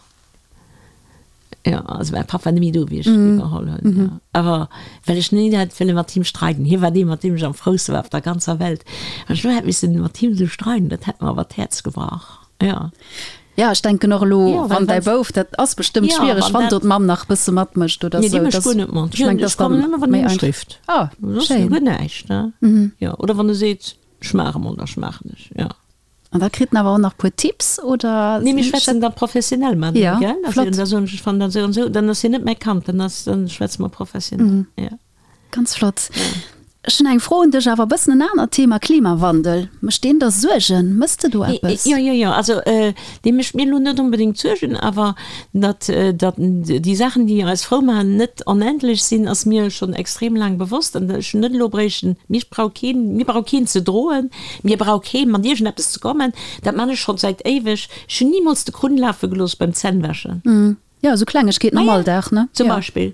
jo, also mäi Papp war net méi do, wéi ech iwwerholl hunn, jo. Awer well ech ni hätt wëlle mat him streiden, hie war dee, mat deem ech am frouste war op der ganzer Welt, wann ech elo hätt missen mat him esou streiden, dat hätt mer awer d'Häerz gebrach. Ja. Ja, ech denken och elo, ja, wann däi Bouf, dat ass bestëmmt ja, schwiereg, wann do d'Mamm nach bësse matmécht oder nee, sou. Nee, déi mécht guer net mat. Ech meng, dat ass dann ëmmer, wann hie mech rifft. Ah, schéin. Guer näischt, ne? Mhm. Ja, oder wann e seet, ech maach emol, da schmaachen ech, ja. An da kritt en awer och nach puer Tipps, oder? Nee, mir schwätzen da professionell mateneen, ja, gell? Also, flott. Da soen ech, ech fannen dat esou an esou, dann ass hien net mäi Kand, dann ass, dann schwätze mer professionell, mhm. ja. Ganz flott. Ech hunn eng Fro un dech, awer e bëssen en anert Thema, Klimawandel. Mécht deen der Suergen? Mëss de do eppes? Jo, jo, jo. Also dee mécht mir elo net onbedéngt Suergen, awer datt, datt déi Saachen, déi eis frou maachen, net onendlech sinn, ass mir schonn extrem laang bewosst. An ech hunn net elo bréichten, mir brauch keen, mir brauch keen ze droen, mir brauch kee mat iergendeppes ze kommen. Dat man ech schonn säit éiweg. Ech hunn nimools de Krunn lafe gelooss beim Zännwäschen. Jo, esou Klengegkeeten am Alldag, ne? Zum Beispill.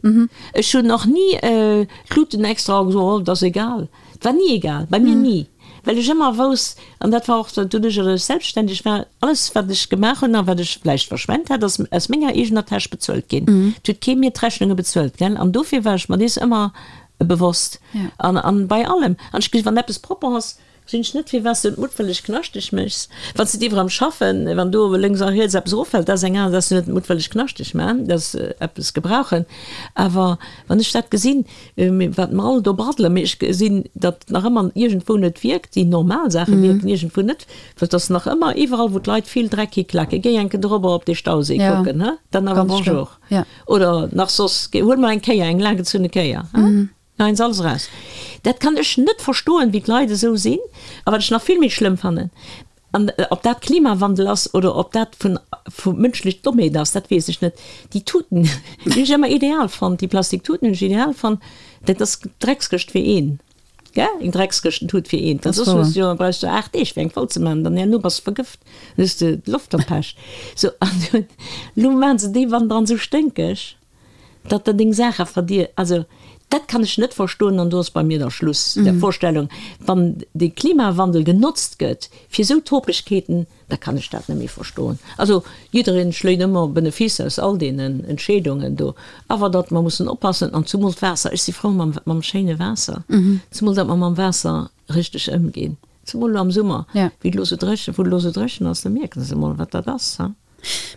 Ech hunn och ni d'Luten extra gesot, oh, et ass egal. Et war ni egal, bei mir ni. Well ech ëmmer wousst, an dat war och doduerch, datt ech selbstständeg war, alles wat ech gemaach hunn a wat ech vläicht verschwent hat, ass aus menger eegener Täsch bezuelt ginn. Et huet kee mir d'Rechnunge bezuelt, gell. An dofir war ech mer dees ëmmer bewosst. An, an bei allem. An ech gesi wann eppes propper ass, Gesinn ech net firwat s du et muttwëlleg knaschteg méchs. Wann s de et iwwer am Schaffen, wann do lénks a riets eppes eroffält, dat ass eng aner, dass du net muttwëlleg knaschteg man, dass eppes gebrauchen. Awer wann ech dat gesinn, wat mer all do braddelen, mee ech gesinn, datt nach ëmmer iergendwou net wierkt, déi normal Saache wierken iergendwou net, well et ass nach ëmmer iwwerall wou d'Leit vill Dreck hiklaken. Géi eng Kéier dorobber op dee Stauséi kucken, he, dann awer bonjour. Oder nach soss, huel mol eng Kéier, eng laanggezunne Kéier, he. Nein, alles eraus. Dat kann ech net verstoen, wéi d'Leit esou sinn. A wat ech nach vill méi schlëmm fannen, an ob dat Klimawandel ass oder ob dat vun vu mënschlech Dommheet ass, dat weess ech net, déi Tuten, déi hunn ech ëmmer ideal fonnt, déi Plastiktuten hunn ech ideal fonnt, dat ass d'Dreckskëscht fir een. Gell? Eng Dreckskëschten-Tut fir eent. Well soss hues du jo, brauchs du 8 Deeg fir eng voll ze maachen, dann herno bass de vergëft, dann hues de d'Loft verpescht. Sou, an dunn, elo maachen se déi Wanderen esou sténkeg, datt der deng Saache verdier. Also, dat kann ech net verstoen an do ass bei mir da Schluss der Vorstellung, wann de Klimawandel genotzt gëtt fir esou Topegkeeten, da kann ech dat net méi verstoen. Also jiddereen schléit ëmmer Benefice aus all deenen Entscheedungen do, awer datt mer mussen oppassen an zumol d'Waasser, ech si frou mam mam schéine Waasser, zumol datt mer mam Waasser richteg ëmginn, zumol elo am Summer, wéi et elo esou dréchen, wou et elo esou dréchen ass, da mierken se emol wat dat ass, ha.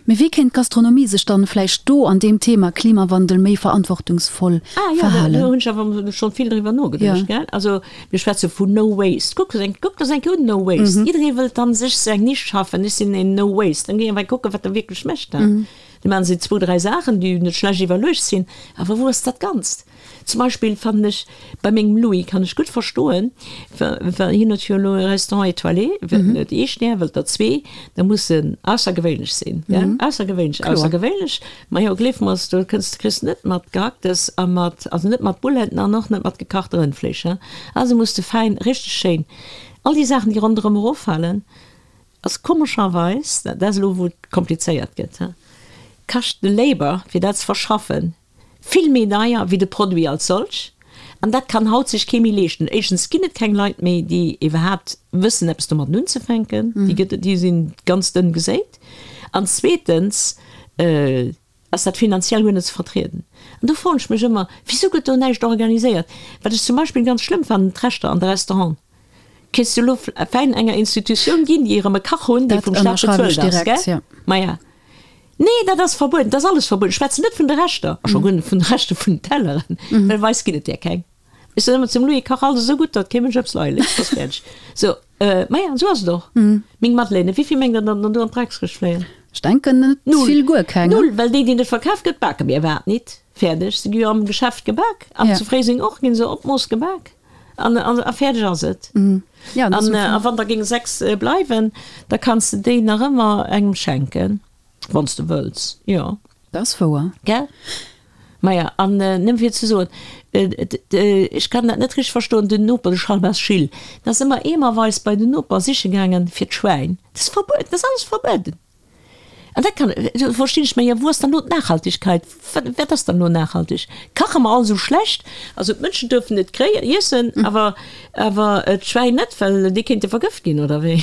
Mee wéi kéint d'Gastronomie sech dann vläicht do an deem Thema Klimawandel méi verantwortungsvoll Ah jo, verhalen? do hunn ech awer schonn vill driwwer nogeduecht, gell. Also mir schwätze vun No Waste. Kuck eng, kuck der eng Kéier un, No Waste. Jidderee wëllt dann sech sou eng Nisch schaffen, ech sinn een No Waste. Dann géi ech awer kucken, wat der wierklech mécht. Da maachen se zwou, dräi Saachen, déi net schlecht iwwerluecht sinn, awer wou ass dat Ganzt? Zum Beispill fannen ech, bei mengem Louis kann ech gutt verstoen, well hien huet jo elo e Restaurant étoilé, wëllt net ee Stär, wëllt der zwee, da muss en aussergewéinlech sinn, gell, aussergewéinlech, aussergewéinlech. Majo, gleef mer, do kënns de, kriss net mat Gehacktes a mat, also net mat Bouletten an och net mat gekachte Rëndfleesch, hein. Also muss de fäin, richteg schéin, all déi Saachen, déi ronderëm eroffalen, ass komescherweis, dat ass elo wou et komplizéiert gëtt, hein, kascht de Labor, fir dat ze verschaffen, Vill méi deier wéi de Produit als solch, an dat kann haut sech kee méi leeschten. Éischtens ginn et keng Leit méi, déi iwwerhaapt wëssen eppes domatten unzefänken, déi gëtt et, déi si ganz dënn geséit, an zweetens ass dat finanziell guer net ze vertrieden. An do froen ech mech ëmmer, Wisou gëtt do näischt organiséiert? Wat ech zum Beispill ganz schlëmm fannen, d'Rechter an de Restauranten. Kéints du elo fäin enger Institutioun ginn, déi erëm e Kach hunn, dee vum Staat bezuelt ass, gell? Maja. Nee, dat ass verbueden, dat ass alles verbueden. Ech schwätzen net vun de Rechter, a scho guer net vun de Rechter vun den Telleren, well bei eis ginn et där keng. Ech soen ëmmer zum Louis, Kach alles esou gutt, datt kee Mënsch eppes leie léisst, ass fäerdeg. Sou, maja, esou ass et och. Meng Madeleine, wéi vill mengt Der, datt der do an d'Dreckskëscht fléien? Ech denken net vill, guer keng. Null, well déi, déi net verkaf gëtt, bake mir iwwerhaapt nit. Fäerdeg. Se gi jo am Geschäft gebak, an zu Fréiseng och, gi se op d'Mooss gebak. An, an, a fäerdeg ass et. Ja, an, a wann der géing 6 bleiwen, da kanns de déi nach ëmmer engem schenken, wann s de wëlls, jo. Dat ass wouer. Gell? Maja, an nëmme fir ze soen, ech kann dat net richteg verstoen, den Noper, de Chalbas Gilles, deen ass ëmmer eemerweis bei den Noper siche gaangen fir d'Schwäin. Dat ass verbueden, dat ass alles verbueden. An dat kann, do verstinn ech, mä jo, wou ass dann elo d'Nachhaltigkeit? Wat, wat ass dann elo nachhaltig? Kache mer all esou schlecht? Also d'Mënschen duerfen et kréien, iessen, awer, awer d'Schwäin net, well déi kéinte vergëft ginn, oder wéi?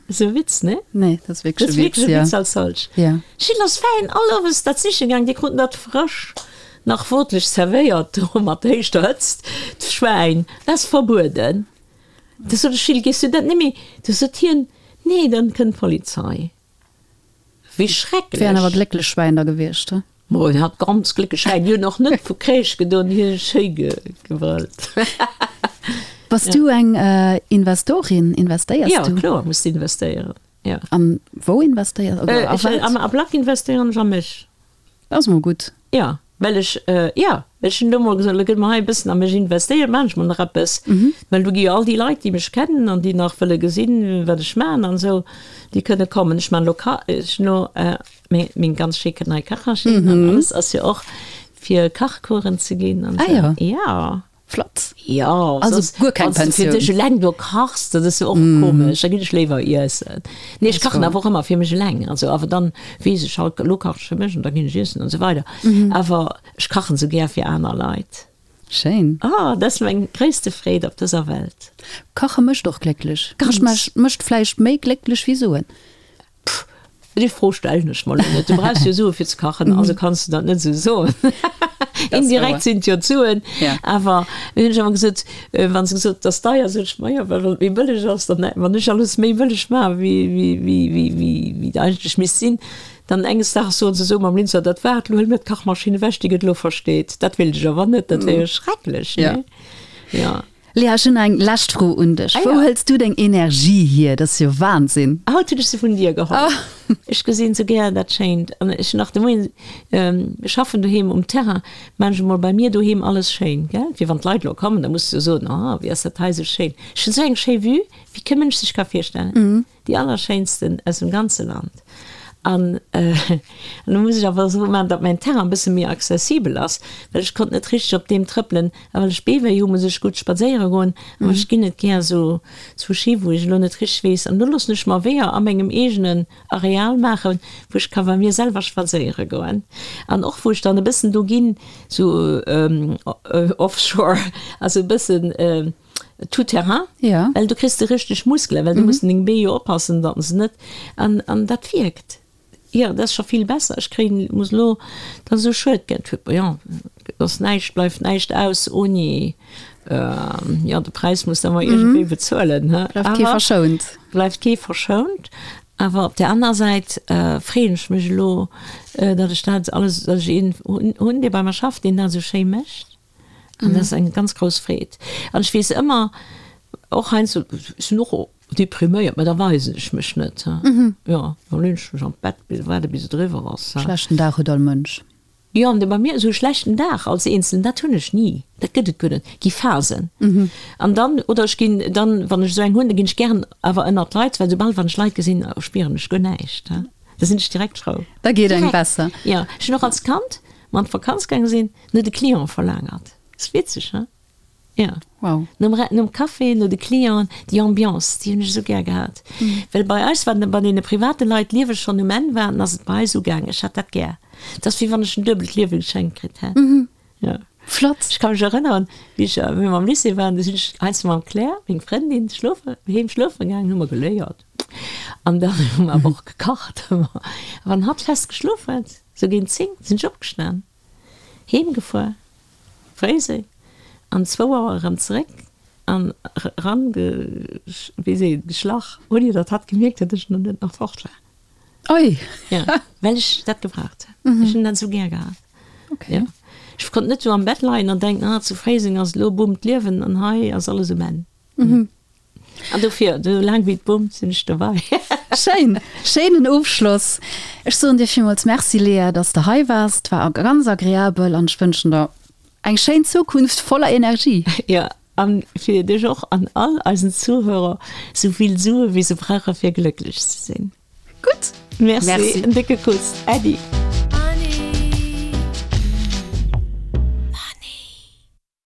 Dat ass e Witz, ne? Nee, dat ass wierklech e Witz, jo. Dat ass wierklech e Witz als solch. Ja. Gilles ass fäin all Owes dat siche gaang, déi kruten dat frësch, nach wotlech zerwéiert do mat héichter Hëtzt, d'Schwäin. Dat ass verbueden. Da sot ech, Gilles, gees du dat net méi? Du sot hien, Nee, dann kënnt d'Polizei. Wéi schrecklech! Wären awer glécklech Schwäin da gewiescht, he? Mo, en hat ganz glécklech Schwäin. Déi hunn och net vu Kréisch gedoen, déi hu schéi gebrëllt. Bass du eng Investorin? Investéiers du? Jo, kloer muss de investéieren, jo. An wou investéiers oder a wat? Am Ablack investéieren ech a mech. Dat ass mol gutt. Jo, well ech, jo, well ech hunn elo mol gesot, elo gëtt mer hei e bëssen a mech investéiert, maachen ech mol nach eppes. Well do gi jo all déi Leit, déi mech kennen an déi nach wëlle gesinn, wat ech maachen an esou, déi kënne kommen. Ech maachen elo Ka, ech hunn elo meng, meng ganz schéi nei Kachmaschinn an alles ass jo och fir Kachcoursen ze ginn an esou. Ah jo. Jo. Flott. Jo, also guer keng Pensioun. Fir dech eleng do kachs, dat ass jo och komesch, da ginn ech léiwer iessen. Nee, ech kachen awer och ëmmer fir mech eleng, also awer dann weess ech halt, elo kachen ech fir mech an da ginn ech iessen an esou weider. Awer ech kachen esou gär fir aner Leit. Schéin. Oh, dat ass meng gréisste Freed op dëser Welt. Kache mécht och glécklech. Kache mécht vläicht méi glécklech wéi Suen. Pff, déi Fro stellen ech mer elo net. Du brauchs jo Sue fir ze kachen, also kanns du dat net esou soen. Indirekt sinn et jo d'Suen. Awer hunn ech ëmmer gesot, wa se gesot, et ass deier, sot ech, majo, well wann et méi bëlleg ass, dann, wann ech alles méi bëlleg maache wéi, wéi, wéi, wéi, wéi, wéi et eigentlech misst sinn, dann enges Daags soen se esou mam Linzer, dat war et, elo huele mir d'Kachmaschinn ewech, déi gëtt elo versteet. Dat wéilt ech awer net, dat wär jo schrecklech, nee? Jo. Léa, ech hunn eng lescht Fro un dech. Wou hëls du deng Energie hier? Dat ass jo Wahnsinn! Haut hunn ech se vun dir geholl. Ech gesinn sou gär dat Schéint. An ech hunn nach de Moien, ech schaffen doheem um Terrain, maan ech emol bei mir doheem alles schéin, gell? Fir wann d'Leit elo kommen, da muss de jo soen, oh, wéi ass dat hei sou schéin. Ech hunn sou eng schéi Vue, wéi kee Mënsch sech ka virstellen. Déi allerschéinsten aus dem ganze Land. An elo muss ech awer esou maachen, datt mäin Terrain e bësse méi accessibel ass, well ech konnt net richteg op deem trëppelen. A well ech Beewéi hu muss ech gutt spadséiere goen, awer ech ginn net gär esou zu Ski, wou ech elo net richteg weess. An do loossen ech mer Weeër a mengem eegenen Areal maachen, wou ech ka bei mir selwer spadséiere goen. An och wou ech dann e bëssen do ginn, sou offshore, also e bëssen tout terrain, well do kriss de richteg Muskelen, well du muss un deng Bee jo oppassen, datt se net, an an dat wierkt. Jo, dat ass scho vill besser. Ech kréien, muss elo, dat ass esou schued, gell, jo, et ass näischt, bleift näischt aus oni, jo, de Präis muss de ëmmer iergendwéi bezuelen, he. Bleift kee verschount. Bleift kee verschount. Awer op där aner Säit freeën ech mech elo, datt ech dat alles, datt ech een hunn, dee bei mer schafft, deen dat esou schéi mécht. An dat ass eng ganz grouss Freed. An ech weess ëmmer, och heiansdo, ech sinn och depriméiert, mä da weisen ech mech net. Jo, da leeën ech mech an d'Bett, waarde bis et eriwwer ass. Schlechten Dag huet all Mënsch. Jo, an bei mir esou e schlechten Dag als Eenzelen, dat hunn ech ni. Dat gëtt et guer net. Gi Phasen. An dann, oder ech ginn dann, wann ech esou eng hunn, da ginn ech gären awer ënnert d'Leit, well soubal wann ech Leit gesinn, spieren ech guer näischt. Da sinn ech direkt frou. Da geet engem besser. Jo, ech hunn och als Kand, mer an d'Vakanz gaange sinn, no de Clienten verlaangert. Ass witzeg, he? Jo. Wow. Nom, nom Café, no de Clienten, déi Ambiance, déi hunn ech esou gär gehat. Well bei eis, wann bei deene private Leit d'Liewe schonn um Enn war, dann ass et bei eis ugaangen. Ech hat dat gär. Et ass wéi wann ech en duebelt Liewe geschenkt kritt hätt. Jo. Flott. Ech ka mech erënneren, wéi ech, wéi mer am Lycée waren, du sinn ech heiansdo mam Claire, meng Frëndin, schlofe, heem schlofe gaangen, hu mer geléiert. An dann hu mer awer och gekacht. A wann hatt fest geschlof huet, Sou géint 10 sinn ech opgestan, heem gefuer, Fréiseng, an zwou Auer erëm zeréck an eran wéi seet een, geschlach, ouni datt hatt gemierkt huet, datt ech net nach fort war. Oi! Jo, well ech dat gebraucht hunn. Ech hunn dat esou gär gehat. Okay. Jo. Ech konnt net sou am Bett leien an denken, ah, zu Fréiseng ass elo boomt d'Liewen an hei ass alles um Enn. An dofir, esou laang wéi et boomt, sinn ech dobäi. Schéin! Schéinen Ofschloss. Ech soen dir villmools Merci, Léa, dass de hei waars. Et war ganz agreabel an ech wënschen der eng schéin Zukunft voller Energie. Jo, an fir dech och an all eisen Zuhörer esou vill Sue wéi se brauche fir glécklech ze sinn. Gutt. Merci, en décke Kuss. Äddi.